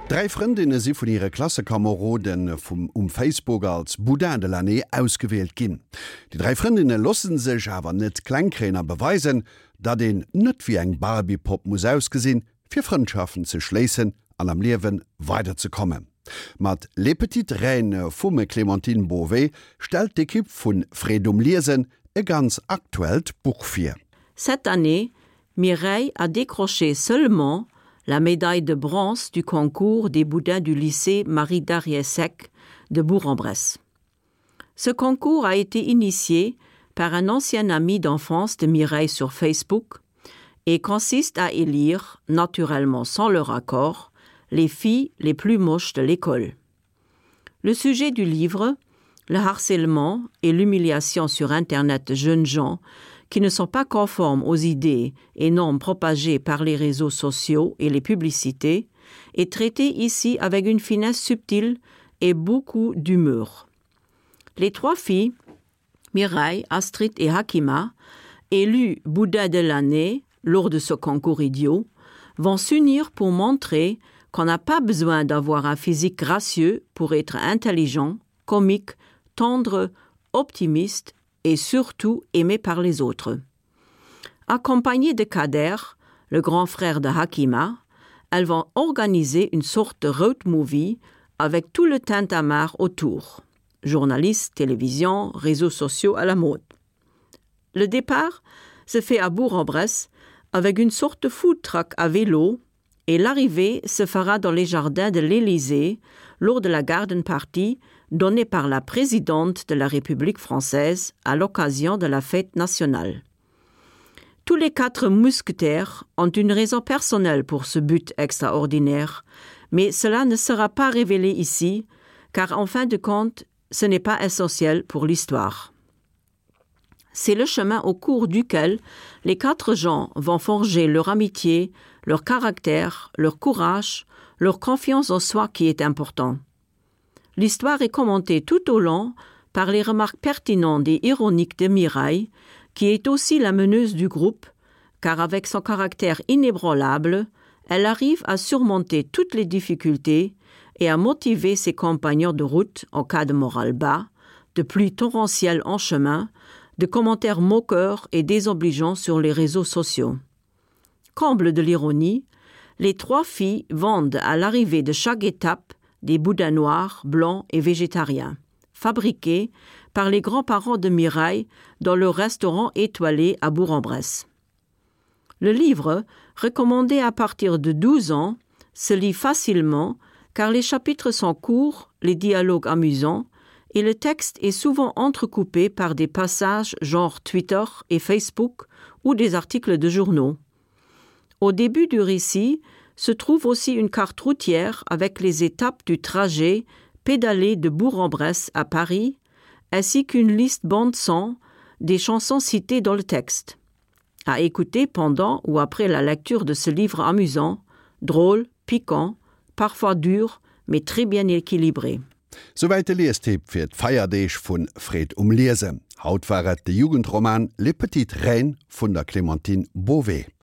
Dräi Frëndinne si vun hire Klassekomerode vum um Facebook als Boudin de l'année ausgewielt ginn. Déi dräi Frëndinne loosse sech awer net kleng kréien a beweisen, datt een net wéi eng Barbie-Popp muss ausgesinn, fir Frëndschaften ze schléissen an am Liewe weiderzekommen. Mat Les Petites Reines vum Clémentine Beauvais stellt d'Ekipp vu Freed um Liesen e ganz aktuellt Buch vir. Cette année, Mireille a décroché seulement la médaille de bronze du concours des boudins du lycée Marie Dariesec de Bourg-en-Bresse. Ce concours a été initié par un ancien ami d'enfance de Mireille sur Facebook et consiste à élire, naturellement sans leur accord, les filles les plus moches de l'école. Le sujet du livre, le harcèlement et l'humiliation sur internet de jeunes gens qui ne sont pas conformes aux idées et normes propagées par les réseaux sociaux et les publicités, est traité ici avec une finesse subtile et beaucoup d'humeur. Les trois filles, Mireille, Astrid et Hakima, élues Bouddha de l'année lors de ce concours idiot, vont s'unir pour montrer qu'on n'a pas besoin d'avoir un physique gracieux pour être intelligent, comique, tendre, optimiste et surtout aimé par les autres. Accompagnées de Kader, le grand frère de Hakima, elles vont organiser une sorte de road movie avec tout le tintamarre autour. Journalistes, télévision, réseaux sociaux à la mode. Le départ se fait à Bourg-en-Bresse avec une sorte de food truck à vélo et l'arrivée se fera dans les jardins de l'Élysée lors de la garden party donnée par la présidente de la République française à l'occasion de la fête nationale. Tous les quatre mousquetaires ont une raison personnelle pour ce but extraordinaire, mais cela ne sera pas révélé ici, car en fin de compte, ce n'est pas essentiel pour l'histoire. C'est le chemin au cours duquel les quatre gens vont forger leur amitié, leur caractère, leur courage, leur confiance en soi qui est important. L'histoire est commentée tout au long par les remarques pertinentes et ironiques de Mireille, qui est aussi la meneuse du groupe, car avec son caractère inébranlable, elle arrive à surmonter toutes les difficultés et à motiver ses compagnons de route en cas de morale bas, de pluie torrentielle en chemin, de commentaires moqueurs et désobligeants sur les réseaux sociaux. Comble de l'ironie, les trois filles vendent à l'arrivée de chaque étape des boudins noirs, blancs et végétariens, fabriqués par les grands-parents de Mireille dans leur restaurant étoilé à Bourg-en-Bresse. Le livre, recommandé à partir de 12 ans, se lit facilement car les chapitres sont courts, les dialogues amusants et le texte est souvent entrecoupé par des passages genre Twitter et Facebook ou des articles de journaux. Au début du récit se trouve aussi une carte routière avec les étapes du trajet pédalé de Bourg-en-Bresse à Paris, ainsi qu'une liste bande-son des chansons citées dans le texte. À écouter pendant ou après la lecture de ce livre amusant, drôle, piquant, parfois dur, mais très bien équilibré. Souwäit de Liestipp fir d'Feierdeeg vu Freed um Liesen. Haut war et de Jugendroman Les petites reines vun der Clémentine Beauvais.